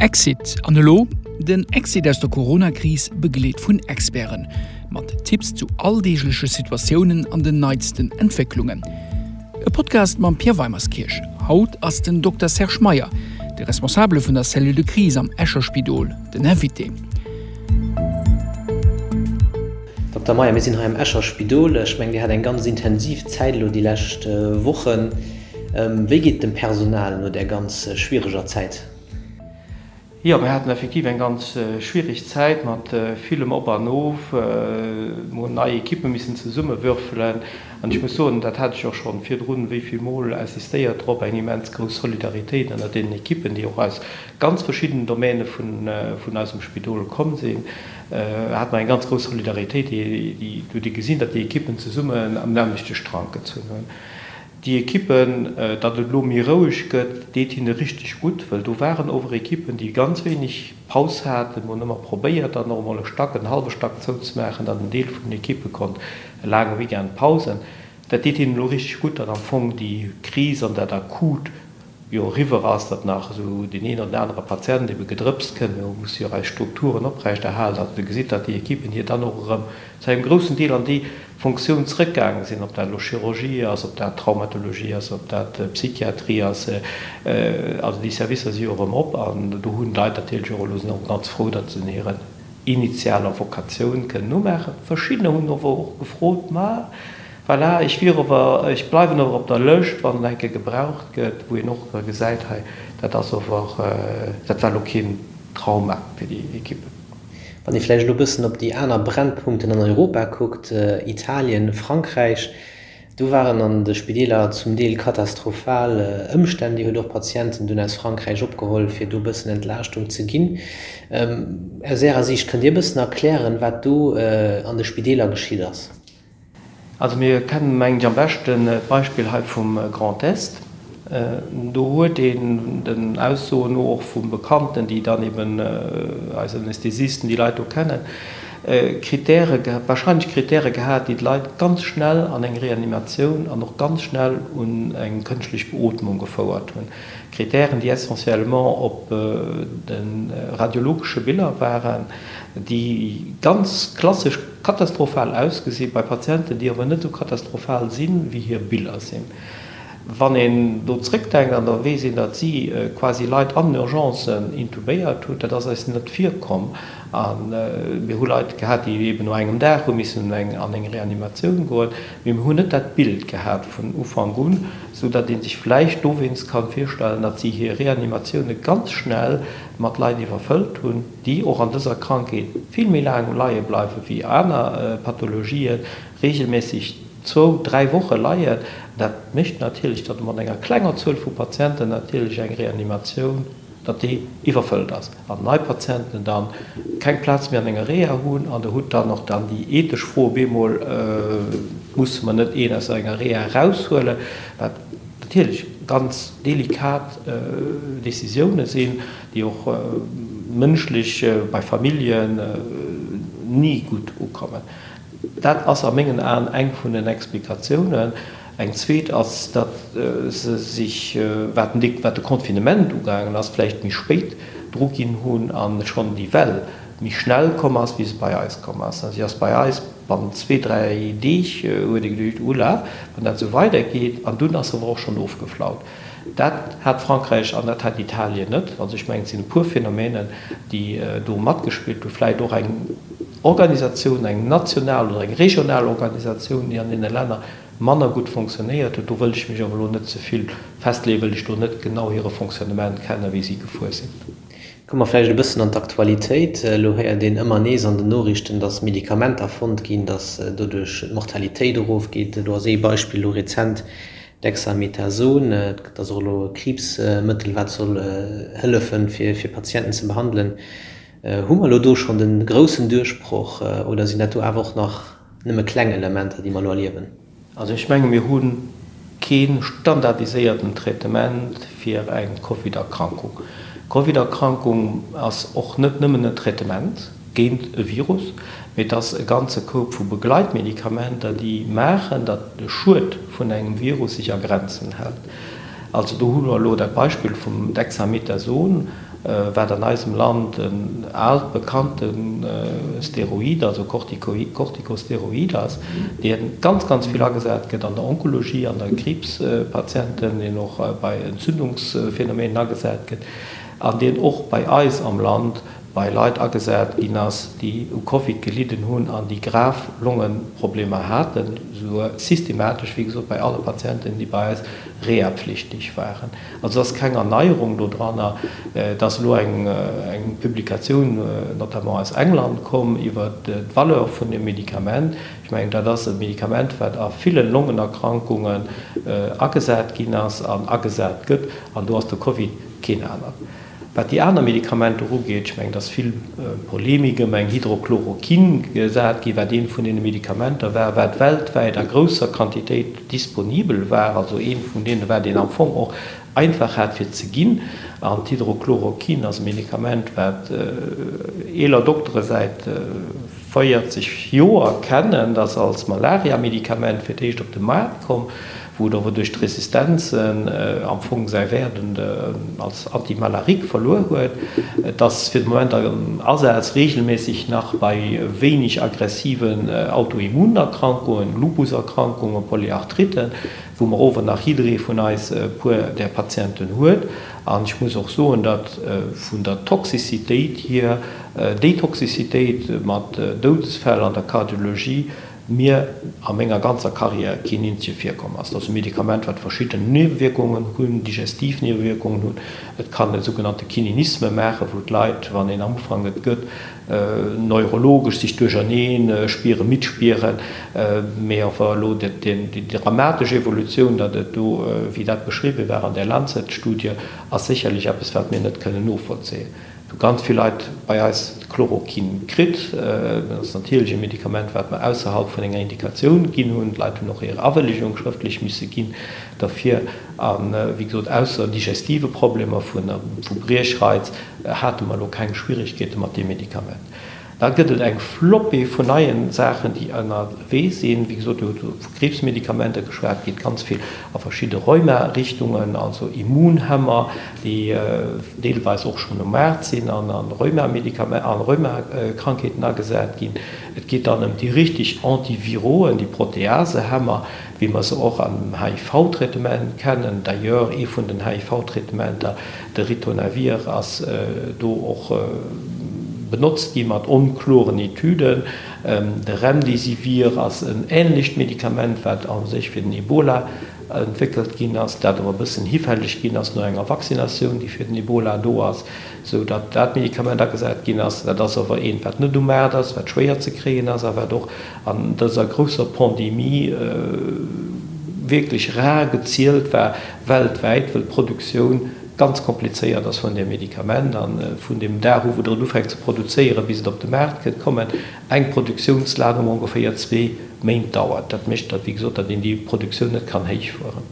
Exit an elo? Den Exit aus der Corona-Kris begleet vun Experten. Mat Tipps zu alldeegleche Situatiounen an den neitsten Entwécklungen. E Podcast mam Pierre Weimerskirch. Haut ass den Dokter Serge Meyer, de Responsabele vun der Cellule de crise am Escher Spidol, den Invité. Dokter Meyer, mir sinn hei am Escher Spidol. Ech mengen, Dir hat eng ganz intensiv Zäit elo déi lescht Wochen. Wéi geet et dem Personal no där ganz schwiereger Zäit? Jo, mir haten effektiv eng ganz schwiereg Zäit mat villem Op an Of. Mir hunn nei Ekippe missen zesummewürfelen. An ech muss soen, dat hat ech och scho virdrun wéi vill Mol insistéiert drop, eng immens grouss Solidaritéit ënnert deenen Ekippen, déi och aus ganz verschiddenen Domäne vun eisem Spidol komm sinn, hate mer eng ganz grouss Solidaritéit, déi huet ee gesinn, datt déi Ekippen zesummen am nämmlechte Strank gezunn hunn. Déi Ekippen, datt et elo méi roueg gëtt, deet hinne richteg gutt, well do waren ower Ekippen, déi ganz wéineg Paus haten. Mir hunn ëmmer probéiert, dann och emol e Stack, en hallwe Stack zouzemaachen, datt en Deel vun den Ekippe konnt e laange Weekend pausen. Dat deet hinnen elo richteg gutt, datt am Fong déi Kris an dat Akut jo eriwwer ass, datt nach esou deen een oder den anere Patient ebe gedrëpst kënnt. Mir musse jo och eis Strukturen oprechterhalen. Also do gesitt, datt déi Ekippen hier dann och erëm zu engem groussen Deel an déi Fonctioun zrëckgaange sinn, ob dat elo Chirurgie ass, ob dat Traumatologie ass, ob dat Psychiatrie ass. Also déi Servicer si jo erëm op an do hunn d'Leit natierlech och elo, sinn och ganz frou, datt se hiren initialer Vokatioun kënnen nomaachen. Verschiddener hunn ower och gefrot, ma Voilà, ech wier ower, ech bleiwen ower op der Lëscht, wann et eng Kéier gebraucht gëtt, wou een och gesäit, hei, dat ass ower, dat war elo keen Trauma fir déi Ekippen. Wann ee vläicht elo e bëssen op déi aner Brennpunkten an Europa kuckt, Italien, Frankräich, do waren an de Spideeler zum Deel katastrophal Ëmstänn. Dir hutt och Patienten dunn aus Frankräich opgeholl, fir do e bëssen Entlaaschtung ze ginn. Aus Ärer Siicht, kënnt Dir e bëssen erklären, wat do an de Spideeler geschitt ass? Also mir kennen, mengen ech, am beschten d'Beispill hei vum Grand Est. Do huet een den Aussoen no, och vu Bekannten, déi dann eben eis Anästhesisten, déi Leit do kennen, Kritäre, wahrscheinlech Kritäre gehat, déi d'Leit ganz schnell an eng Reanimatioun an och ganz schnell un eng kënschtlech Beootmung gefouert hunn. Kritären, déi essentiellement op de radiologesche Biller waren, déi ganz klassesch katastrophal ausgesi bei Patienten, déi awer net esou katastrophal sinn, wéi hir Biller sinn. Wann een do zrëckdenkt an da weess een, datt si quasi Leit an den Urgencen intubéiert hunn, dat ass eis net virkomm. A mir hu Leit gehat, déi eben no engem Dag hu missen an eng Reanimatioun goen, mee mir hunn net dat Bild gehat vun Ufank un, sou datt ee sech vläicht dowéinst ka virstellen, datt si hir Reanimatioune ganz schnell mat Leit iwwerfëllt hunn, déi och an dëser Krankheet vill méi laang leie bleiwe wéi aner Pathologien, reegelméisseg zwou, dräi Woche leien. Dat mécht natierlech, datt mat enger klenger Zuel vu Patienten natierlech eng Reanimatioun, datt déi iwwerfëllt ass an nei Patienten dann keng Plaz méi an enger Reha hunn. An Der hutt dann och dann déi ethesch Fro op eemol, Musse mer net een aus enger Reha eraushuelen? Wat natierlech ganz delikat Décisioune sinn, déi och mënschlech bei Familljen ni gutt ukommen. Dat ass a mengen Aen eng vun den Explikatiounen. Eng zweet ass, datt se sech, wat de Confinement ugaangen ass, vläicht méi spéit dru ginn hunn a schonn déi Well méi schnell komm ass, wéi se bei eis komm ass. Si ass bei eis bannent zwee, dräi Deeg, huet ee geduecht, Oula, wann dat esou weidergeet. An dunn ass se awer och schonn ofgeflaut. Dat hat Frankräich an dat hat Italien net. Also ech mengen, et sinn e puer Phänomenen, déi do matgespillt hunn. Vläicht och eng Organisatioun, eng national oder eng regional Organisatioun, déi an deene Länner manner gutt fonctionnéiert huet. Do wëll ech mech awer elo net ze vill festleeën, wëll ech do net genau hire Fonctionnement kennen, wéi si gefuer sinn. Komme mer vläicht e bëssen an d'Aktualitéit. Elo héiert een ëmmer nees an den Noriichten, datt Medikamenter fonnt ginn, datt doduerch d'Mortalitéit erofgeet. Do ass ee Beispill elo rezent Dexamethason. Et ass och elo e Kriibsmëttel, wat soll hëllefen, fir Patienten ze behandelen. Hu mer elo do schonn de groussen Duerchbroch oder sinn dat do awer och nach nëmme kleng Elementer, déi mer elo erliewen? Also ech menge mir hu kee standardiséierten Traitement fir eng Covid-Erkrankung. D'Covid-Erkrankung ass och net nëmmen en Traitement géint e Virus, mee et ass e ganze Koup vu Begleitmedikamenter, déi maachen, datt de Schued vun engem Virus sech a Grenzen hält. Also do hu mer elo dat Beispill vum Dexamethason. wat an eisem Land en aalt bekannte Steroid, also Corticosteroid ass, dee ganz, ganz vill agesat gëtt an der Onkologie, an der Kriibspatienten, deen och bei Entzündungsphänomenen agesat gëtt an deen och bei eis am Land bei Leit agesat ginn ass, déi u Covid gelidden hunn an déi grav Longeproblemer haten, souguer systematesch, wéi gesot, bei alle Patienten, déi bei eis rehapflichtig waren. Also et ass keng Erneierung do dranner. Et ass elo eng Publikatioun, notamment aus England, komm iwwert d'Valeur vun deem Medikament. Ech mengen, dat ass e Medikament, wat a ville Longenerkrankungen agesat ginn ass an agesat gëtt, an do ass de Covid keen anert. Wat déi aner Medikamenter ugeet, ech mengen, et ass vill Polemik ëm eng Hydrochloroquine gesat ginn, wat eent vun deene Medikamenter war, wat weltwäit a grousser Quantitéit disponibel war, also eent vun deene war, deen am Fong och einfach hat fir ze ginn. An d'Hydrochloroquine ass e Medikament, wat eeler Doktere säit 40 Joer kennen, dat ass als Malaria-Medikament fir d'éischt op de Maart komm, wou et awer duerch d'Resistenzen am Fong säi Wäert als Antimalarique verluer huet. Et ass fir de Moment am Asaz reegelméisseg nach bei wéineg aggressiven Autoimmunerkrankungen, Lupuserkrankungen, Polyarthritten, wou mer ower nach jidderee vun eis e puer där Patienten huet. An ech muss och soen, datt vun der Toxicitéit hier, déi Toxicitéit mat Doudesfäll an der Kardiologie mir a menger ganzer Carrière keen eenzege virkomm ass. Dat ass e Medikament, wat verschidden Niewewierkungen hunn, digestiv Niewewierkungen hunn. Et kann e sougenannte Kininisme maachen, wou d'Leit, wann een am Ufank et gëtt, neurologesch sech duercherneen spieren, midd spieren. Mee awer elo déi dramatesch Evolutioun, datt et do, wéi dat beschriwwen war an där Lancet-Studie, ass sécherlech eppes, wat mir net kënnen novollzéien. Hu ganz vill Leit bei eis Chloroquin kritt. Dat ass natierlech e Medikament, wat mer ausserhalb vun enger Indikatioun ginn hunn. D'Leit hunn och hir Awëllegung schrëftlech misse ginn derfir. A wéi gesot, ausser digestive Problemer vu Briechreiz hate mer elo keng Schwierigkeete mat deem Medikament. Da gëtt et eng Flopée vun neien Saachen, déi ënnerwee sinn. Wéi gesot, Dir hutt vu Kriibsmedikamenter geschwat, et geet ganz vill a verschidde Rheuma-Richtungen, also Immunhemmer, déi deelweis och schonn um Maart sinn an a Rheumakrankheeten agesat ginn. Et geet dann ëm déi richteg Antiviroen, déi Proteasehemmer, wéi mer se och am HIV-Traitement kennen. D'ailleurs, ee vun den HIV-Traitementer, de Ritonavir, ass do och benotzt gi mat onkloren Etüden. De Remdesivir ass en änlecht Medikament, wat a sech fir den Ebola entwéckelt ginn ass, dat awer e bëssen hifälleg ginn ass no enger Vaccinatioun, déi fir den Ebola do ass, sou datt dat Medikament agesat ginn ass. Dat ass awer eent, wat net um Maart ass, wat schwéier ze kréien ass a wat och an dëser grousser Pandemie wierklech rar gezielt war weltwäit, wëll d'Produktioun ganz komplizéiert ass vun deem Medikament a vun deem Dag u wou Der et ufänkt ze produzéieren, bis et op de Maart kënnt, kommen, eng Produktiounsladung ongeféier zwee Méint dauert. Dat mécht datt, wéi gesot, datt een déi Produktioun net kann héichfueren.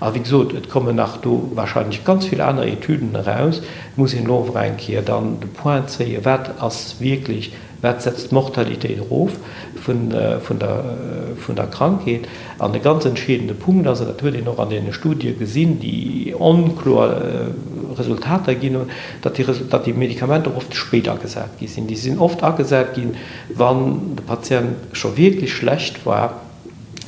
A wéi gesot, et kommen nach do wahrscheinlech ganz vill aner Etüden eraus. Et muss een elo awer eng Kéier dann de Point zéien, wat ass wierklech Wat setzt d'Mortalitéit erof vun der Krankheet? An e ganz entscheedende Punkt ass, an dat huet een och an deene Studie gesinn, déi onkloer Resultater ginn hunn, datt déi Medikamenter oft spéit agesat gi sinn. Déi sinn oft agesat ginn, wann de Patient scho wierklech schlecht war.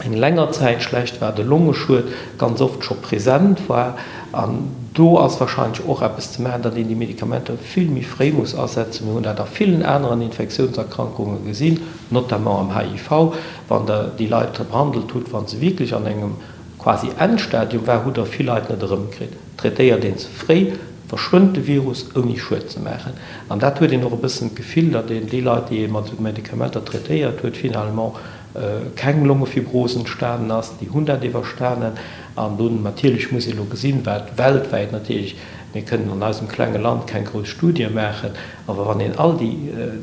eng länger Zäit schlecht war, de Longeschued ganz oft scho present war. An do ass wahrscheinlech och eppes ze maachen, datt een déi Medikamenter vill méi fréi muss asetzen. Mir hunn dat a villen aneren Infektiounserkrankunge gesinn, notamment am HIV. Wann Der déi Leit behandelt hutt, wa se wierklech an engem quasi Endstadium war, hutt Der vill Leit net erëmkritt. Traitéiert een ze fréi, verschwënnt de Virus ouni Schued ze maachen. An dat huet een och e bëssen d'Gefill, datt een déi Leit, déi ee mat esou Medikamenter traitéiert huet, finalement keng Longefibros entstanen ass, déi hunn dat iwwerstanen. An dunn natierlech muss ee elo gesinn, wat weltwäit natierlech, mir kënnen an eisem klenge Land keng grouss Studie maachen, awer wann een all déi,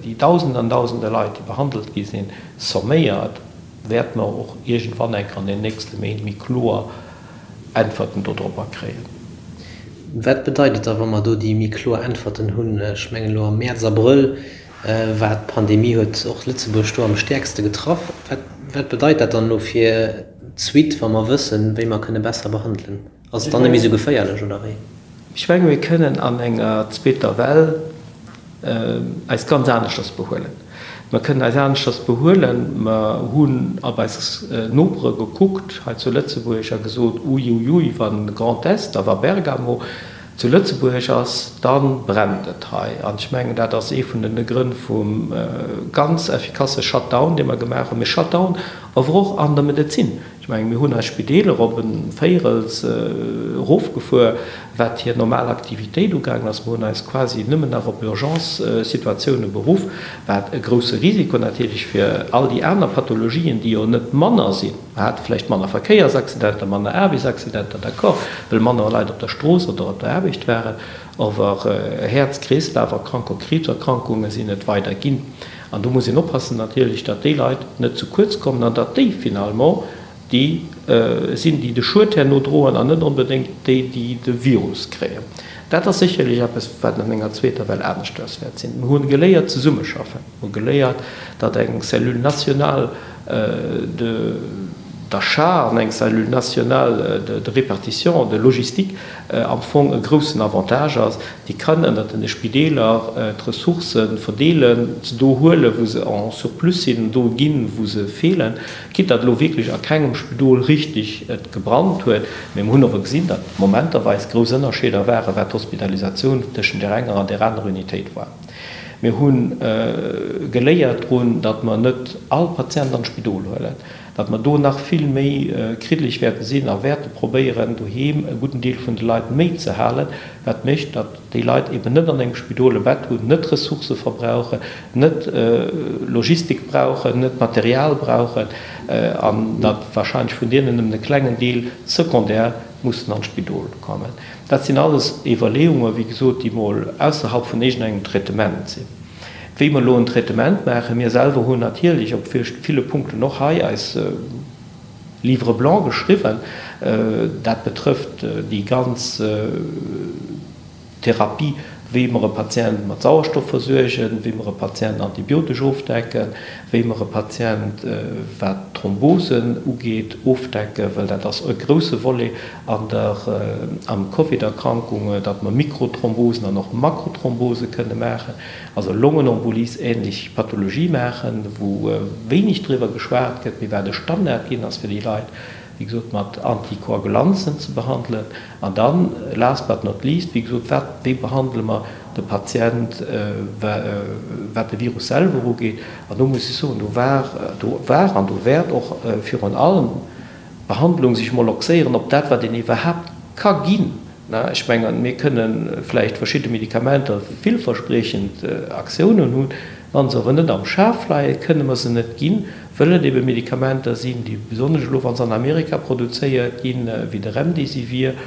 déi Dausende an Dausende Leit, déi behandelt gi sinn, somméiert, wäerte mer och iergendwann enk an den nächste Méint méi kloer Äntwerten dodropper kréien. Wat bedeit et da, wa mer do déi méi kloer Äntwerten hunn? Ech mengen elo am Mäerz, Abrëll war d'Pandemie, huet och Lëtzebuerg do am stäerkste getraff. Wat, wat bedeit dat dann elo fir d'Suite, wa mer wëssen, wéi mer kënne besser behandelen? Ass et dann net méi esou geféierlech, oder wéi? Ech menge mir kënnen an enger zweeter Well eis ganz aneschters behuelen. Mer kënnen eis aneschters behuelen. Mer hunn op eis Nopere gekuckt hei zu Lëtzebuerg a gesot, Uiuiui, wann Grand Est a wa Bergamo zu Lëtzebuerg ass, da brennt et hei. An ech mengen, dat ass ee vun de Grënn vum ganz effikasse Shutdown, dee mer gemaach hunn. Mee Shutdown awer och an der Medezin. Ech mengen, mir hunn eis Spideeler op e Véirels erofgefuer, wat hir normal Aktivitéit ugaangen ass. Mir hunn eis quasi nëmmen nach op Urgence-Situatioune beruff, wat e grousse Risiko natierlech fir all déi aner Pathologien, déi jo net manner sinn. Mer hate vläicht manner Verkéiersaccidenter, manner Aarbechtsaccidenter, d'accord, well manner Leit op der Strooss oder op der Aarbecht waren, awer Häerz-Kreeslaf-Erkrankungen, Kriibserkrankunge sinn et weider ginn. An do muss een oppassen natierlech, datt déi Leit net ze kuerz kommen an datt déi finalement déi sinn, déi de Schued herno droen an net onbedéngt déi, déi de Virus kréien. Dat ass sécherlech eppes, wat an enger zweeter Well aneschters wäert sinn. Mir hu geléiert zesummeschaffen. Mir hu geléiert, datt eng Cellule nationale de d'achat an eng Cellule nationale de répartition, de logistique am Fong e groussen Avantage ass. Déi kann ënnert den Spideeler d'Ressourcë verdeelen, se do huelen, wou se en surplus sinn, do ginn, wou se feelen. Quitte datt elo wierklech a kengem Spidol richtig et gebrannt huet, mee mer hunn awer gesinn, datt momenterweis grouss Ënnerscheeder waren, wat d'Hospitalisatioun tëschent där enger an där anerer Unitéit war. Mir hu geléiert drun, datt mer net all Patient an d'Spidol huelen. datt mer do nach vill méi kriddeleg wäerte sinn a wäerte probéieren, doheem e gudden Deel vun de Leit méi ze halen, wat mécht, datt déi Leit eben net an engem Spidol e Bett hunn, net Ressourcë verbrauchen, net Logistik brauchen, net Material brauchen an datt wahrscheinlech vun deenen nëmmen e klengen Deel secondaire mussen an d'Spidol kommen. Dat sinn alles Iwwerleeungen, wéi gesot, déi mol ausserhalb vun iergendengem Traitement sinn. Wéi mer elo en Traitement maachen, mir selwer hunn natierlech op ville Punkten och hei eis Livre blanc geschriwwen, dat betrëfft déi ganz Therapie, wéi mer e Patient mat Sauerstoff versuergen, wéi mer e Patient antibiotesch ofdecken, wéi mer e Patient, wat d'Thrombosen ugeet, ofdecken, well dat ass e grouse Volet an der am Covid-Erkrankung, datt mer Mikrothrombosen an och Makrothrombose kënne maachen, also Longenembolie-ähnlech Pathologie maachen, wou wéineg driwwer geschwat gëtt, mee wat e Standard ginn ass fir déi Leit, wéi gesot, mat Antikoagulanzen ze behandelen. An dann, last but not least, wéi gesot, wat, wéi behandele mer de Patient, wat de Virus selwer ugeet? An do muss ech soen, do war, do war an do wäert och virun allem Behandlung sech mol oxéieren op dat, wat een iwwerhaapt ka ginn. Ech mengen, mir kënne vläicht verschidde Medikamenter villverspriechend Aktiounen hunn, wa se awer net am Schaf leien, kënne mer se net ginn, wëll et ebe Medikamenter sinn, déi besonnesch elo, wa se an Amerika produzéiert ginn, wéi de Remdesivir,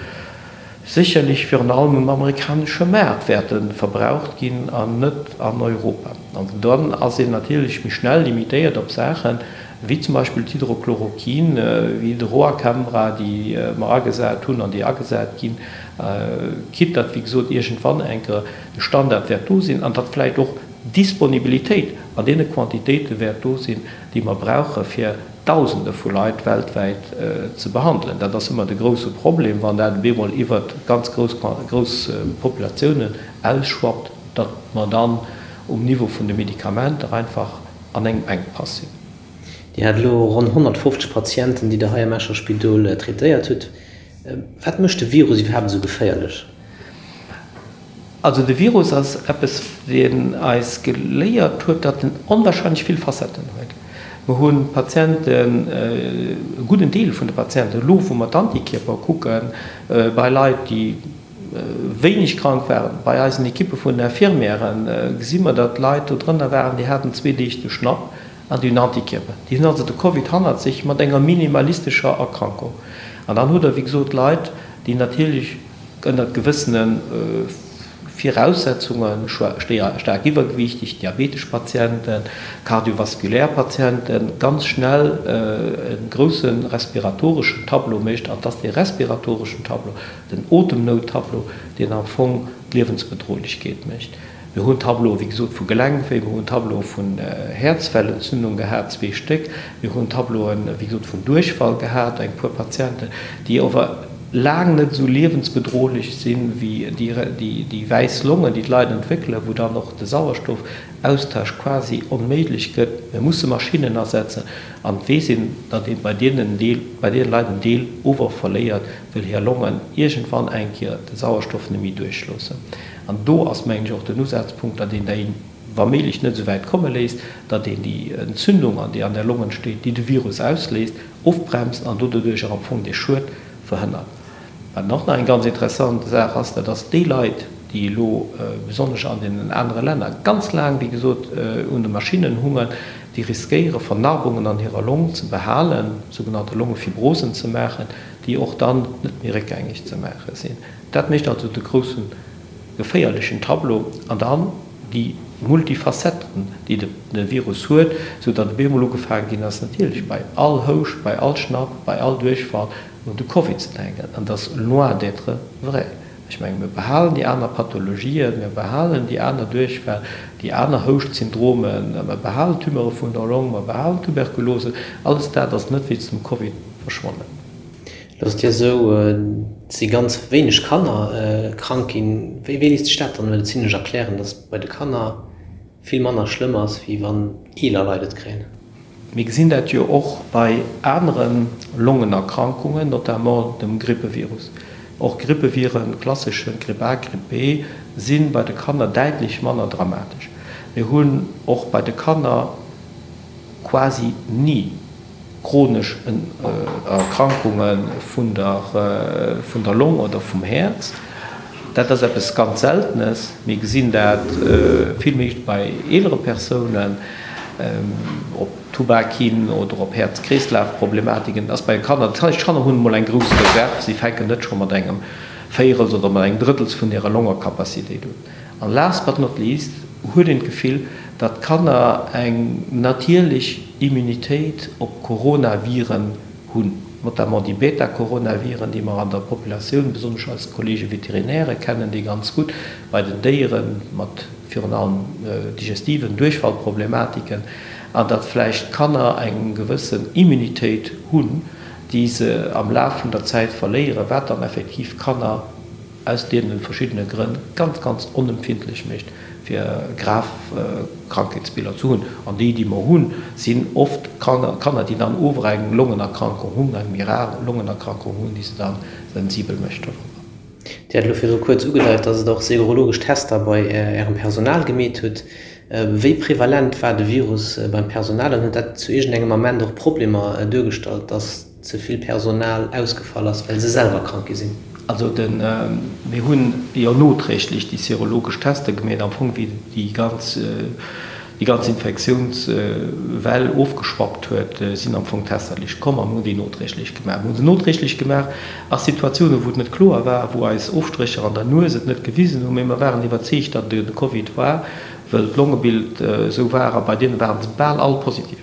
sécherlech virun allem um amerikanesche Maart wäerte verbraucht ginn an net an Europa. An dann ass een natierlech méi schnell limitéiert op Saachen, wéi zum Beispill d'Hydrochloroquin, wéi de Roacambra, déi mer agesat hunn an déi agesat ginn, quitte datt, wéi gesot, iergendwann eng Kéier de Standard wäert do sinn an datt vläicht och d'Disponibilitéit an deene Quantitéite wäert do sinn, déi mer brauche fir Dausende vu Leit weltwäit ze behandelen. Dat ass ëmmer de grousse Problem, wann dat op eemol iwwert ganz grouss grouss Populatiounen ausschwappt, datt mer dann um Niveau vun de Medikamenter einfach an engem Enkpass sinn. Dir hat elo ronn 150 Patienten, déi Der hei am Escher Spidol traitéiert hutt. Wat mécht de Virus iwwerhaapt esou geféierlech? Also de Virus ass eppes, deen eis geléiert huet, datt en onwahrscheinlech vill Facetten huet. Mer hu Patienten, e gudden Deel vun de Patienten, elo wou mer d'Antikierper kucken, bei Leit, déi wéineg krank waren, bei eisen Ekippe vun den Infirmièren gesi mer, datt Leit do drënner waren, déi haten zwee Deeg de Schnapp an déi hunn Antikierper. Déi hunn also de Covid hannert sech mat enger minimalistescher Erkrankung. An dann hutt Der, wéi gesot, Leit, déi natierlech, Ënnert gewëssene Viraussetzungen, staark iwwergewiichteg, diabetesch Patienten, kardiovaskulär Patienten, ganz schnell e grousse respiratoreschen Tableau mécht. An et ass dee respiratoreschen Tableau, den Otemnout-Tableau, deen am Fong d'Liewensbedrohlechkeet mécht. Mir hunn Tableaue wéi gesot vu Gelenkwéi, mir hunn Tableaue vun Häerzwellentzündung gehat, zwee Stéck, mir hunn Tableauen wéi gesot vun Duerchfall gehat, eng puer Patienten, déi ower. laang net esou liewensbedrohlech sinn, wéi déi wäiss Longen, déi d'Leit entwéckelen, wou dann och de Sauerstoffaustausch quasi onméiglech gëtt. Mir musse Maschinnen asetzen an et weess een, datt ee bei deenen Deel, bei deene Leit en Deel ower verléiert, wëll hir Longen iergendwann eng Kéier de Sauerstoff net méi duerchloossen. An do ass, mengen ech, och den Usazpunkt, datt een déi wa méiglech net esou wäit komme léisst, datt een déi Entzündung, déi an der Long entsteet, déi de Virus ausléist, ofbremst an doduercher am Fong dee Schued verhënnert. Wat och nach eng ganz interessant Saach ass, dat ass déi Leit, déi elo besonnesch an deenen anere Länner ganz laang, wéi gesot, un de Maschinnen hungen, déi riskéiere Vernarbungen an hirer Long ze behalen, sougenannte Longefibrosen ze maachen, déi och dann net méi réckgängeg ze maache sinn. Dat mécht also de groussen geféierlechen Tableau an dann déi Multifacetten, déi de Virus huet, sou datt op eemol ugefaange ginn ass, natierlech bei all Houscht, bei all Schnapp, bei all Duerchfall un de Covid ze denken. An dat ass loin d'être vrai. Ech menge mir behalen déi aner Pathologien, mir behalen déi aner Duerchfäll, déi aner Houschtsyndromen, mir behalen Tumeure vun der Long, mir behalen Tuberkulose. Alles dat ass net wéinst dem Covid verschwonnen. Lo ass et jo esou, et si ganz wéineg Kanner krank ginn. Wéi léisst sech dat dann elo zimlech erklären, datt et bei de Kanner vill manner schlëmm ass, wéi wann eeler Leit et kréien? Mir gesinn dat jo och bei anere Longenerkrankungen, notamment dem Grippevirus. Och Grippeviren, klasseschen, Gripp A, Gripp B, si bei de Kanner däitlech manner dramatesch. Mir hunn och bei de Kanner quasi ni chronesch Erkrankunge vun der Long oder vum Häerz. Dat ass eppes ganz Seltenes. Mir gesinn dat vill méi bei eelere Persounen, op Tubak hin oder op Häerz-Kreeslaf-Problematiken. Dat ass bei Kanner, dat heescht, d'Kanner hunn emol eng grouss Reserv, si fänken net scho mat engem Véierels oder mat engem Drëttels vun hirer Longecapacitéit un. An last but not least huet een d'Gefill, datt d'Kanner eng natierlech Immunitéit op Coronaviren hunn, notamment déi Beta-Coronaviren, déi mer an der Populatioun, besonnesch eis Kollege Veterinäre kennen déi ganz gutt, bei den Déiere mat virun allem digestiven Duerchfallproblematiken, an datt vläicht d'Kanner eng gewëssen Immunitéit hunn, déi se am Laf vun der Zäit verléieren, wat dann effektiv Kanner aus deene verschiddene Grënn ganz, ganz onempfindlech mécht, fir grav Krankheetsbiller ze hunn. An déi, déi mer hunn, sinn oft Kanner, déi dann ower eng Longenerkrankung hunn, eng méi rar Longenerkrankung hunn, déi se da sensibel mécht dorobber. Dir hat elo virdru kuerz ugedeit, dass et och serologesch Tester bei Ärem Personal gemeet hutt. Wéi prevalent war de Virus beim Personal an huet dat zu iergendengem Ament och Problemer duergestallt, dass ze vill Personal ausgefall ass, well se selwer krank gi sinn. Also de, mir hunn jo noträglech déi serologesch Tester gemeet, am Fong wéi déi ganz, déi ganz Infektiounswell ofgeschwappt huet, sinn am Fong d'Tester liicht komm a mir hunn déi noträglech gemaach. Mir hu se noträglech gemaach a Situatiounen, wou et net kloer war, wou eis Ofstrécher an der Nues et net gewisen hunn, mee mer waren iwwerzeegt, datt et de Covid war, wëll d'Longebild esou war a bei deene ware se bal all positiv.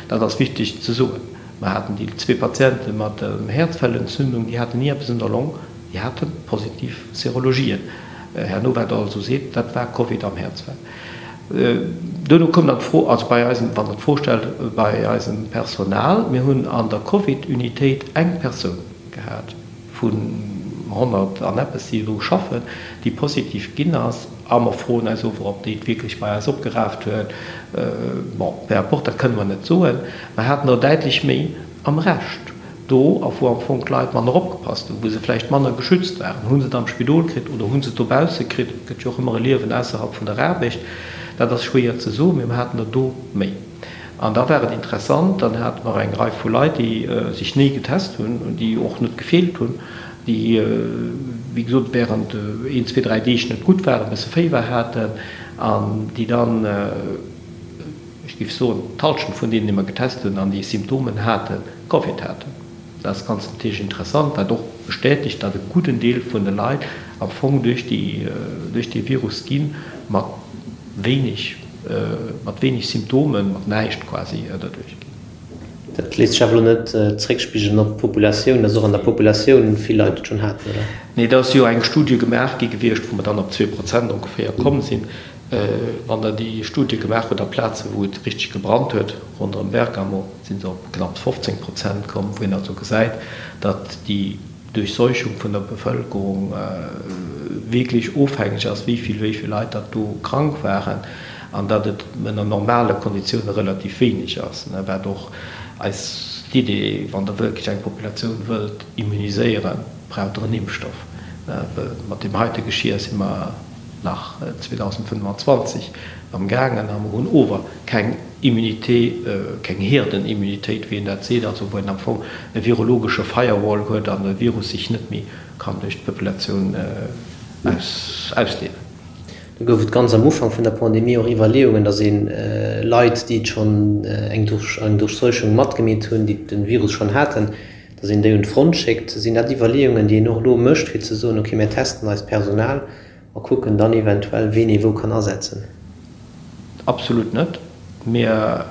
Dat ass wichteg ze soen. Mer haten déi zwee Patiente mat der Häerzfellentzündung, déi haten ni eppes un der Long, déi hate positiv Serologien. Herno, wat Der also seet, dat war Covid am Häerzfell. Duerno koum dann d'Fro, also bei eisem, wann Der d'Fro stellt, bei eisem Personal, mir hunn an der Covid-Unitéit eng Persoun gehat vun 100 an eppes, déi do schaffen, déi positiv ginn ass. A mer froen eis ower, ob déi et wierklech bei eis opgeraaft huet. Bon, peu importe, dat kënne mer net soen. Mer haten der däitlech méi am Rescht do, a wou am Fong d'Leit manner opgepasst hunn, wou se vläicht manner geschützt waren. Hu se et am Spidol kritt oder hu se et dobausse kritt? Et gëtt jo och ëmmer e Liewen ausserhalb vun der Aarbecht. Dat ass schwéier ze soen, mee mer haten der do méi. An da war et interessant, dann hate mer eng Rei vu Leit, déi sech ni getest hunn, déi och net gefeelt hunn, déi, wéi gesot, während een, zwee, dräi Deeg net gutt waren, e bësse Féiwer haten an déi dann, ech géif soen, d'Halschent vun deenen, déi mer getest hunn an déi Symptomen haten, Covid haten. Dat ass ganz natierlech interessant, wat och bestätegt, datt e gudden Deel vun de Leit am Fong duerch déi, duerch dee Virus gi mat wéineg, mat wéineg Symptomen, mat näischt quasi derduerch ginn. Dat léisst sech awer elo net zréckspigelen op d'Populatioun, datt och an der Populatioun vill Leit et schonn haten, oder? Nee, et ass jo eng Studie gemaach gi gewiescht, wou mer dann op 2% ongeféier komm sinn. Wann Der déi Studie gemaach hutt a Plazen, wou et richteg gebrannt huet, ronderëm Bergamo, si se op knapps 15 Prozent komm, wou een also gesäit, datt déi. Durchseuchung vun der Bevëlkerung wierklech ofhängeg ass, wéi vill wéi vill Leit datt do krank waren, an datt et ënner normale Konditioune relativ wéineg ass, wat och eis d'Idee, wann Der wierklech eng Populatioun wëllt immuniséieren, braucht Der en Impfstoff, well mat deem heite Geschir si mer nach 2025 amgaangen a mer hunn ower keng Immunité, keng Herdenimmunitéit, wéi een dat seet, also wou een am Fong e virologesche Firewall huet an de Virus sech net méi kann duerch d'Populatioun ausdeelen. Do gouf et ganz am Ufank vun der Pandemie och Iwwerleeungen, datt ee Leit, déi schonn eng Durchseuchung matgemeet hunn, déi de Virus schonn haten, datt een déi un d'Front schéckt. Sinn dat Iwwerleeungen, déi een och elo mécht, fir ze soen, okay, mir testen eist Personal a kucken dann eventuell, ween ee wou kann asetzen? Absolut net. Mir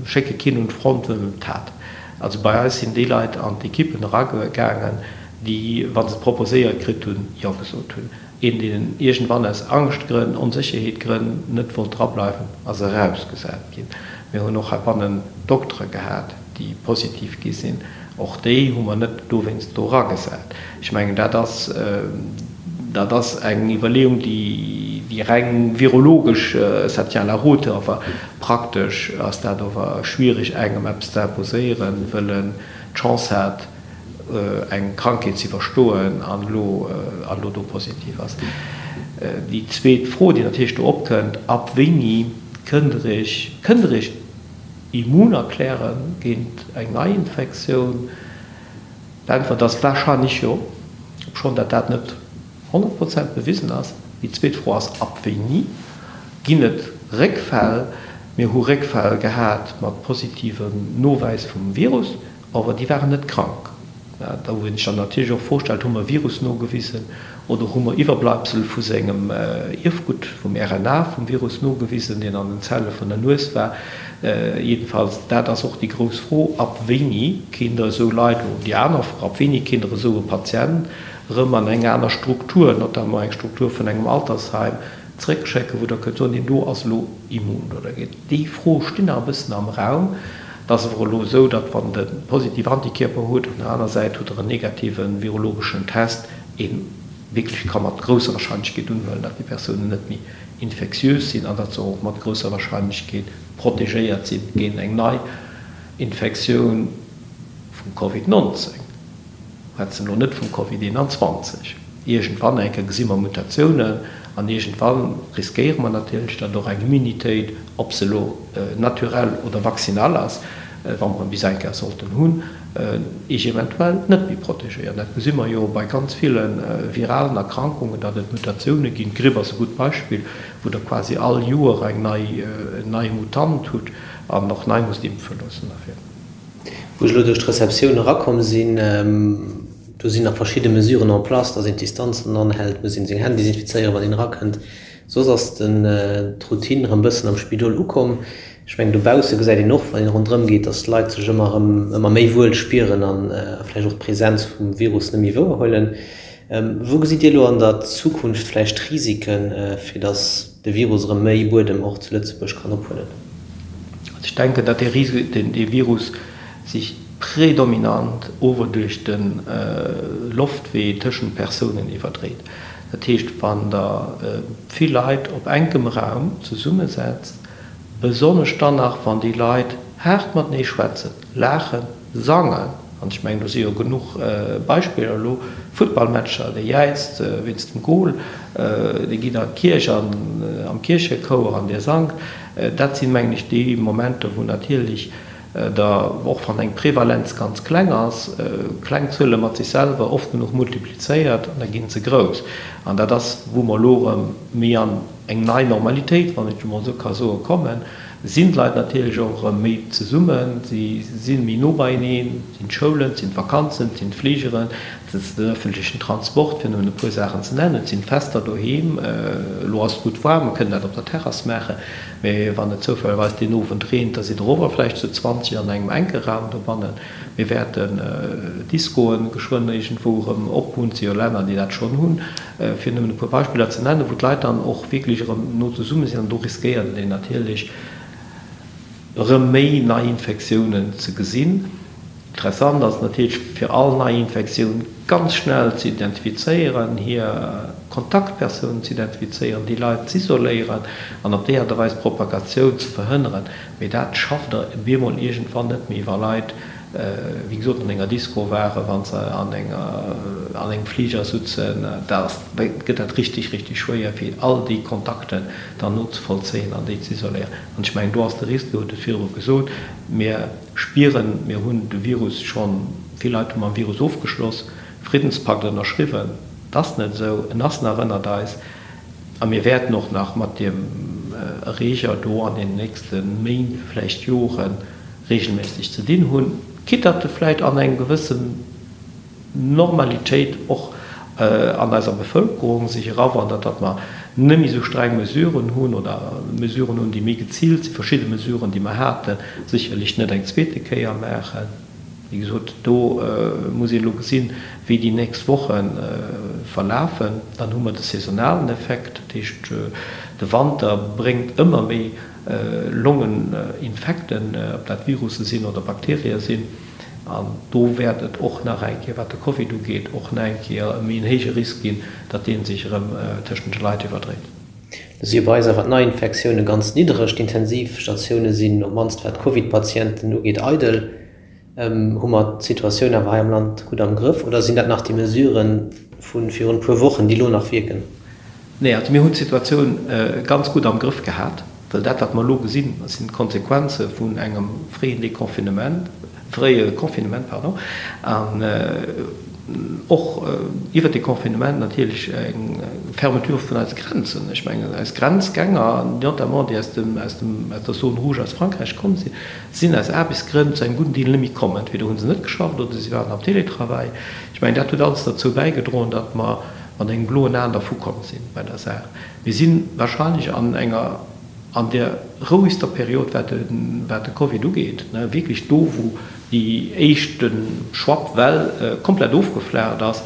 schécke keen un d'Front, wëll en et hat. Also bei eis sinn déi Leit an d'Ekippen eragaangen, déi, wa se et proposéiert kritt hunn, Jo gesot hunn. Een, deen iergendwann aus Angschtgrënn, Onsécherheetgrënn net wollt drableiwen, ass erausgesat ginn. Mir hunn och heibannen Doktere gehat, déi positiv gi sinn. Och déi hu mer net dowéinst do eragesat. Ech mengen, dat ass, dat ass eng Iwwerleeung, déi, déi reng virologesch, ça tient la route, awer praktesch ass dat ower schwierig, engem eppes ze imposéieren, wëll en d'Chance hat, eng Krankheet ze iwwerstoen an elo, an elo do positiv ass. Déi zweet Fro, déi natierlech do opkënnt, Ab wéini kënnt Der Iech, kënnt Der Iech immun erkläre géint eng Neiinfektioun? D'Äntwert ass warscheinlech jo, obschonn dat dat net 100 Prozent bewisen ass. Déi zweet Fro ass, ab wéini ginn et Réckfäll? Mir hu Réckfäll gehat mat positivem Nowäis vum Virus. Awer déi waren net krank. Da wou een sech dann natierlech och d'Fro stellt, Hu mer e Virus nogewisen oder hu mer Iwwerbleibsel vu sengem Ierfgutt, vum RNA vum Virus nogewisen, deen an den Zelle vun der Nues war? Jedenfalls, dat ass och déi grouss Fro, Ab wéini kéint Der esou Leit, oder déi aner Fro, ab wéini kéint Der esou e Patient erëm an eng aner Struktur, notamment eng Struktur vun engem Altersheim, zréckschécken, wou Der kënnt soen, deen do ass elo immun oder Déi Froe stinn nach e bëssen am Raum. Et ass awer elo esou, datt wann de positiv Antikierper hutt, an der aner Säit hutt Der en negative virologeschen Test, ee wierklech ka mat grousser Warscheinlechkeet unhuelen, datt déi Persounen net méi infektiös sinn an datt se och mat grousser Warscheinlechkeet protegéiert si géint eng nei Infektioun vum Covid 19. Schwätzen elo net vum Covid 21. Iergendwann eng Kéier gesi mer Mutatiounen an iergendwann riskéiere mer natierlech, datt och eng Immunitéit, ob se elo naturell oder vaccinal ass, wa mer en bis eng Kéier sollten hunn, eech eventuell net méi protegéiert. Dat gesi mer jo bei ganz ville viralen Erkrankungen, datt et Mutatioune ginn. D'Gripp ass e gutt Beispill, wou Der quasi all Joer eng nei, en neie Mutant hutt an och nei musst impfe loossen derfir. Wou ech elo duerch d'Receptioun erakomm sinn, do sinn nach verschidde Mesuren en place, dass een d'Distanzen anhält, muss een seng Hänn desinfizéieren, wann een erakënnt. Soss ass den d'Routine erëm bëssen am Spidol ukomm. Ech mengen, dobausse gesäit een och, wann een ronderëm geet, dass d'Leit sech ëmmer erëm ëmmer méi wuel spieren a vläicht och d'Presenz vum Virus net méi wouerhuelen. Wou gesitt Dir elo an der Zukunft vläicht Risiken, fir dass de Virus erëm méi Buedem och zu Lëtzebuerg kann ophuelen? Also ech denken, datt dee Virus sech predominant ower duerch de Loftwee tëschent Persounen iwwerdréit. Dat heescht, wann Der vill Leit op enkem Raum zesummesetzt, besonnesch dann nach, wann déi Leit haart matenee schwätzen, laachen, sangen, an ech mengen, do si jo genuch Beispiller elo, Futtballmatcher, dee jäizt wéinst dem Gol, dee geet an d'Kierch an am Kierchechouer an dee sangt, dat sinn, mengen ech, déi Momenter, wou natierlech der, och wann eng Prevalenz ganz kleng ass, kleng Zuele mat sech selwer oft genuch multiplizéiert an da gi se grouss. An dat ass, wou mer elo erëm méi an eng nei Normalitéit, wann ech emol esou ka soen, kommen, sinn d'Leit natierlech och erëm méi zesummen, si si méi no beieneen, et sinn d'Schoulen, et sinn d'Vakanzen, et sinn d'Fligeren, et ass den ëffentlechen Transport, fir nëmmen e puer Saachen ze nennen, et sinn d'Fester doheem. Elo ass et gutt waarm, mer kënnen dat op der Terrass maachen, mä wann et zoufällegerweis deen Owend reent, da sidd Der ower vläicht zu 20 an engem enke Raum dobannen. Mir wäerten Discoen geschwënn iergendwou erëm ophunn, et si jo Länner, déi dat schonn hunn, fir nëmmen e puer Beispiller ze nennen, wou d'Leit dann och wierklech erëm no zesumme sinn. An do riskéiert een natierlech erëm méi Neiinfektiounen ze gesinn. Interessant ass natierlech fir all nei Infektioun ganz schnell ze identifizéieren, hir Kontaktpersounen ze identifizéieren, déi Leit z'isoléieren an op déi Aart a Weis d'Propagatioun ze verhënneren. Mee dat schafft Der bemol iergendwann net méi, wa Leit, wéi gesot, an enger Disco waren, wa se an enger, an engem Fliger sutzen. Da gëtt dat richtig, richtig schwéier, fir all déi Kontakten dann nozevollzéien an déi z'isoléieren. An ech mengen, do ass de Risque, Dir hutt et virdru gesot, mir spieren, mir hunn de Virus schonn, vill Leit hu mam Virus ofgeschloss, Friddenspakt ënnerschriwwen, et ass net esou, en ass nach ënnert eis a mir wäerten och nach mat deem Erreeger do an den nächste Méint, vläicht Jore regelméisseg ze dinn hunn, quitte datt e vläicht an eng gewëssen Normalitéit och an eiser Bevëlkerung sech erawandert, datt mer net méi esou streng Mesuren hunn oder Mesuren hunn, déi méi geziilt sinn, verschidde Mesuren, déi mer haten, sécherlech net eng zweete Kéier maachen. Wéi gesot, do muss een elo gesinn, wéi déi nächst Woche verlafen. Dann hu mer de saisonalen Effekt, dat heescht, de Wanter bréngt ëmmer méi Longeninfekten, ob dat Virusse sinn oder Bakterië sinn. An do wäert et och nach eng Kéier, wat de Covid ugeet, och nach eng Kéier e méi en héije Risk ginn, datt dee sech erëm tëschent de Leit iwwerdréit. Do si bei eis awer d'Neiinfektioune ganz niddereg. D'Intensivstatioune sinn, op d'mannst wat d'Covid-Patienten ugeet, eidel. Hu mer d'Situatioun awer hei am Land gutt am Grëff oder sinn dat nach déi Mesurë vu virun e puer Wochen, déi elo nach wierken? Nee, also mir hunn d'Situatioun ganz gutt am Grëff gehat. Well dat, wat mer elo gesinn, sinn d'Konsequenze vun engem fréien Deconfinement, fréie Confinement, pardon, an och iwwert de Confinement natierlech eng Fermeture vun eise Grenzen. Ech mengen, eis Grenzgänger, notamment déi aus dem, aus dem, aus der Zone rouge aus Frankräich komm sinn, sinn aus Aarbechtsgrënn zu engem gudden Deel net méi komm. Entweder hu se net geschafft oder si waren am Télétravail. Ech mengen, dat huet alles derzou bäigedroen, datt mer mat engem bloen Aen dervukomm sinn bei der Saach. Mir si wahrscheinlech an enger, an där rouegster Period, wat de, wat de Covid ugeet, wierklech do, wou déi éischte Schwappwell komplett ofgeflaacht ass.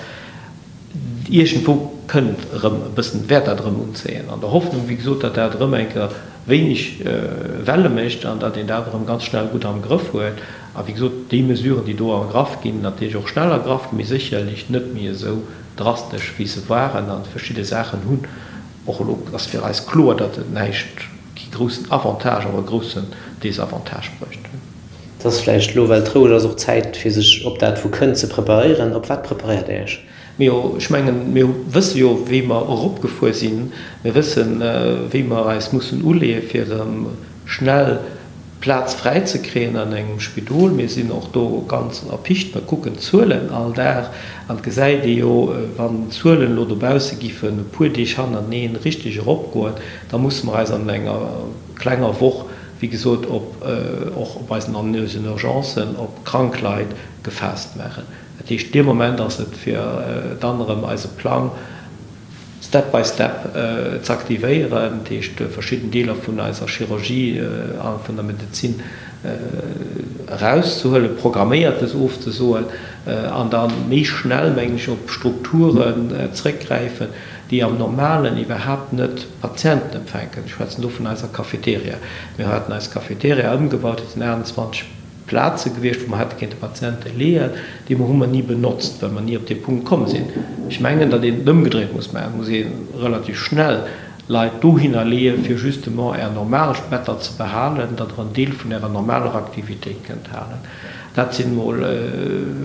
Iergendwou kënnt erëm e bëssen, wäert dat erëm unzéien, an der Hoffnung, wéi gesot, datt dat erëm eng Kéier wéineg Welle mécht an datt een dat erëm ganz schnell gutt am Grëff huet. A wéi gesot, déi Mesuren, déi do ergraff ginn, natierlech och schnell ergraff ginn, mee sécherlech net méi esou drastesch wéi se waren an verschidde Saachen hunn och elo ass fir eis kloer, datt et näischt, kee groussen Avantage, awer e groussen Désavantage bruecht hunn. Et ass vläicht elo, well et roueg ass, och Zäit fir sech op dat wou kënnt ze preparéieren. Op wat preparéiert Dir Iech? Mir, ech mengen, mir wësse jo wéi mer eropgefuer sinn. Mir wëssen, wéi mer eis mussen uleeë fir erëm schnell Plaz fräi ze kréien an engem Spidol. Mir sinn och do ganz erpicht. Mer kucken d'Zuelen all Dag an et gesäit ee jo, wann d'Zuelen elo dobausse giffen e puer Deeg hannerteneen richteg eropgoen, da musse mer eis an enger klenger Woch, wéi gesot, op och op eisen an eisen Urgencen op krank Leit gefaasst maachen. Dat heescht, dee Moment ass et fir dann erëm eise Plang, step by step ze aktivéieren, dat heescht verschidden Deeler vun eiser Chirurgie a vun der Medezin erauszehuelen, Programméiertes ofzesoen an da méi schnell, mengen ech, op Strukturen zréckgräifen, déi am Normalen iwwerhaapt net Patienten empfänken. Ech schwätzen do vun eiser Cafeteria. Mir haten eis Cafeteria ëmgebaut, dat sinn 28 Plaze gewiescht, wou mer hätte kéinte Patiente leeën, déi mer hu mer ni benotzt, well mer ni op dee Punkt komm sinn. Ech mengen, datt een et ëmgedréit muss maachen. Et muss ee relativ schnell Leit dohinner leeën, fir justement Är normal Better ze behalen, datt Der en Deel vun Ärer normaler Aktivitéit kënnt halen. Dat sinn emol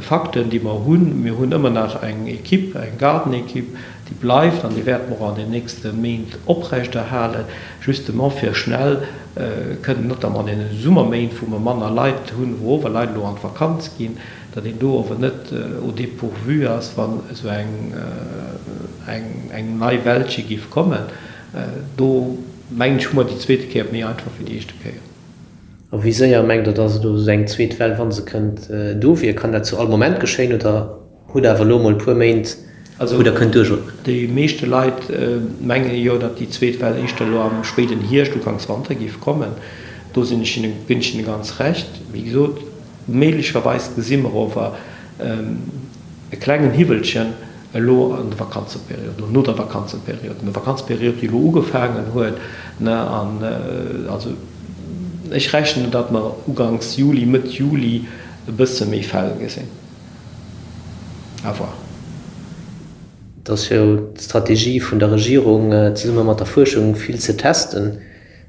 Fakten, déi mer hunn. Mir hunn ëmmer nach eng Equipe, eng Gardenequipe, déi bleift an déi wäerte mer och an den nächste Méint oprechterhalen, justement fir schnell kënnen, notamment an deene Summerméint, wou mer manner Leit hunn, wou ower Leit elo an d'Vakanz ginn, datt een do ower net au dépourvu ass, wann esou eng eng nei Wellche géif kommen. Do mengen ech, hu mer déi zweete Kéier et méi einfach wéi déi éischte Kéier. A wéi séier mengt Der, datt elo esou eng zweet Well, wa se kënnt, do wier? Kann dat zu all Moment geschéien oder Hutt awer elo mol puer Méint, wou der kënnt duerchootmen. Déi meeschte Leit menge jo, datt déi zweet Well éischter elo am spéiden Hierscht, uganks Wanter géif kommen. Do sinn ech hinne, ginn ech hinne ganz Recht. Wéi gesot, méiglecherweis gesi mer ower e klengen Hiwwelchen elo an der Vakanzeperiod, oder no der Vakanzeperiod, an der Vakanzeperiod, déi elo ugefaangen huet, ne, an also ech rechnen, datt mer uganks Juli, Mëtt Juli. e bësse méi Fäll gesinn. À voir. Et ass jo d'Strategie vun der Regierung, zesumme mat der Fuerschung vill ze testen.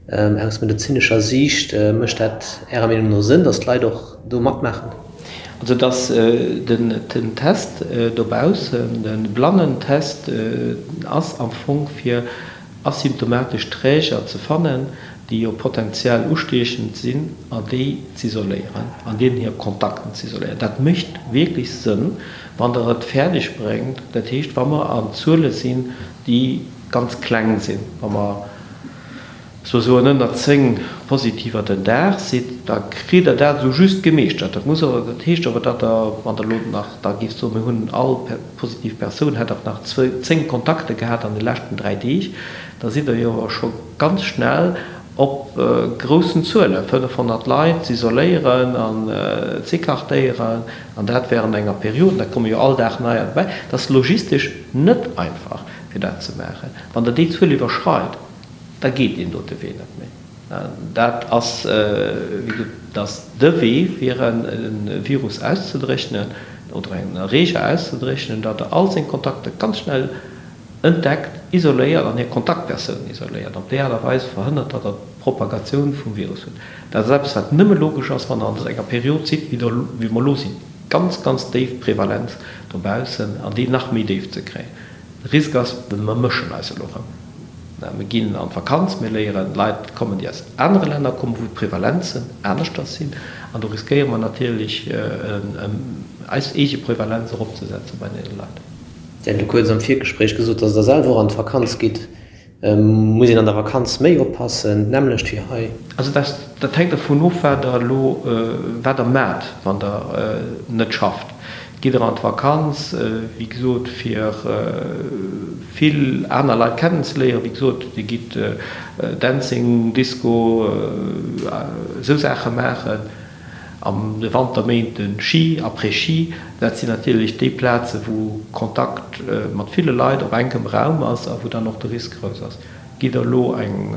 Aus medezinescher Siicht, mécht dat Ärer Meenung no Sënn, datt d'Leit och do matmaachen? Also datt den Test dobaussen, de Blannentest ass am Fong fir asymptomatesch Träger ze fannen, déi jo potenziell ustiechend sinn, an déi z'isoléieren an deenen hir Kontakten z'isoléieren. Dat mécht wierklech Sënn, wann Der et fäerdeg bréngt, dat heescht, wa mer an Zuele sinn, déi ganz kleng sinn, wa mer, sousoen ënner 10 Positiver den Dag sidd, da kritt Der dat esou just gemeeschtert. Dat muss awer, dat heescht awer, datt Der, wann Der elo nach da géift soen, mir hunn all positiv Persoun hätt och nach 10 Kontakte gehat an de leschten 3 Deeg, da sidd Der jo awer scho ganz schnell op groussen Zuelen, 500 Leit z'isoléieren an z'écartéieren, an dat während enger Period, da komme jo all Dag neier dobäi. Dat ass logistesch net einfach, fir dat ze maachen. Wann Der déi Zuel iwwerschreit, da geet deen dote Wee net méi. Dat ass, wéi gesot, dat ass de Wee, fir e Virus auszedréchnen oder en Erreeger auszedréchnen, datt Der all seng Kontakter ganz schnell entdeckt, isoléiert an hir Kontaktpersounen isoléiert. Op déi Aart a Weis verhënnert Der, datt d'Propagatioun vum Virus hutt. Dat ass eppes, wat nëmme logesch ass, wann Der an enger Period sidd, wéi mer elo sinn, ganz, ganz déif Prevalenz dobaussen an déi nach méi déif ze kréien. De Risk ass, mer mëschen eis elo erëm. Mir ginn an d'Vakanz, mir léieren Leit kommen, déi aus anere Länner kommen, wou d'Prevalenzen aneschters sinn. An do riskéiere mer natierlech, eis eege Prevalenz eropzesetze bei deene Leit. Dir hat elo kuerz am Virgespréich gesot, datt Der selwer och an d'Vakanz gitt. Muss een an der Vakanz méi oppassen, d'nämmlecht wéi hei? Also dat hänkt dervun of, wat Der elo, wat Der maacht, wann Der net schafft. Gitt Der an d'Vakanz, wéi gesot, fir vill aner Leit kennenzeléieren, wéi gesot, Dir gitt Dancing, Disco, esou Saache maachen. An de Wanterméinten Ski, Après-Ski, dat sinn natierlech déi Plaze wou Kontakt mat ville Leit op enkem Raum ass a wou dann och de Risk grouss ass. Gitt der elo eng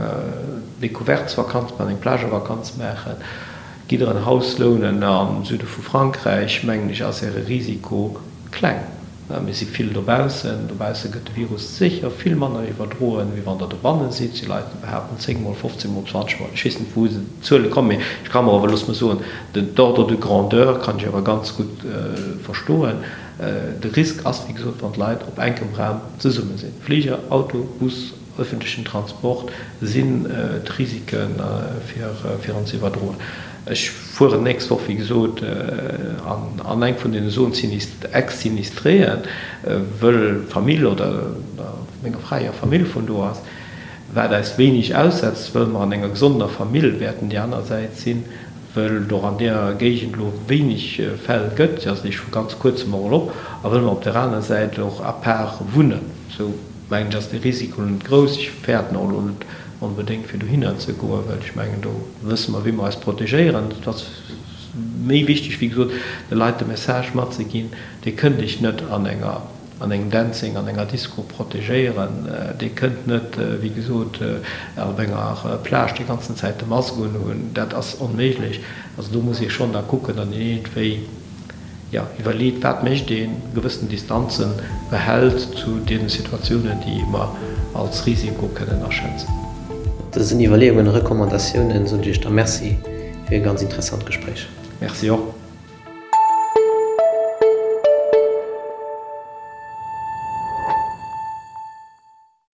Découvertesvakanz maachen, eng Plagevakanz maachen, gitt der en Haus lounen am Süde vu Frankräich, mengen ech ass äre Risiko kleng. Mir si vill dobaussen. Dobausse gëtt de Virus sécher vill manner iwwerdroen, wéi wann Der dobanne sidd. Si Leit, déi behaapten 10 mol, 15 mol, 20 mol. Ech weess net, wou se d'Zuele kommen, mee ech ka mer awer, looss mer soen, den d'Ordre de grandeur kann ech awer ganz gutt verstoen. De Risk ass, wéi gesot, wann d'Leit op enkem Raum zesumme sinn. Fliger, Auto, Bus, Ëffentlechen Transport sinn d'Risike fir en ze iwwerdroen. Ech fueren d'nächst Woch, wéi gesot, an eng vun deene Zones ex-sinistréen, wëll d'Famill oder menger Fra hir Famill vun do ass, wat eis wéineg aussetzt, wëll mer an enger gesonder Famill wäerten déi aner Säit sinn, wëll et och an deer Géigend elo wéineg Fäll gëtt, se ass eréischt vu ganz kuerzem och elo op, a wëll mer op der aner Säit och à part wunnen. Sou mengen ech ass de Risiko net grouss. Ech fäerten och elo net onbedéngt fir dohinner ze goen, well ech mengen do wësse mer wéi mer eis protegéieren. Et ass méi wichteg wéi gesot de Leit de Message matzeginn, Dir kënnt iech net an enger an engem Dancing, an enger Disco protegéieren, Dir kënnt net wéi gesot op enger Plage déi ganzen Zäit de Mask unhunn, dat ass onméiglech. Also do muss ee schonn da kucken, datt een iergendwéi jo, iwwerleet, wat mécht een, gewëssen Distanze behält zu deene Situatiounen, déi mer als Risiko kënnen aschätzen. Mat dësen Iwwerleeungen a Recommandatiounen soen ech Iech da Merci fir e ganz interessant Gespréich. Merci och.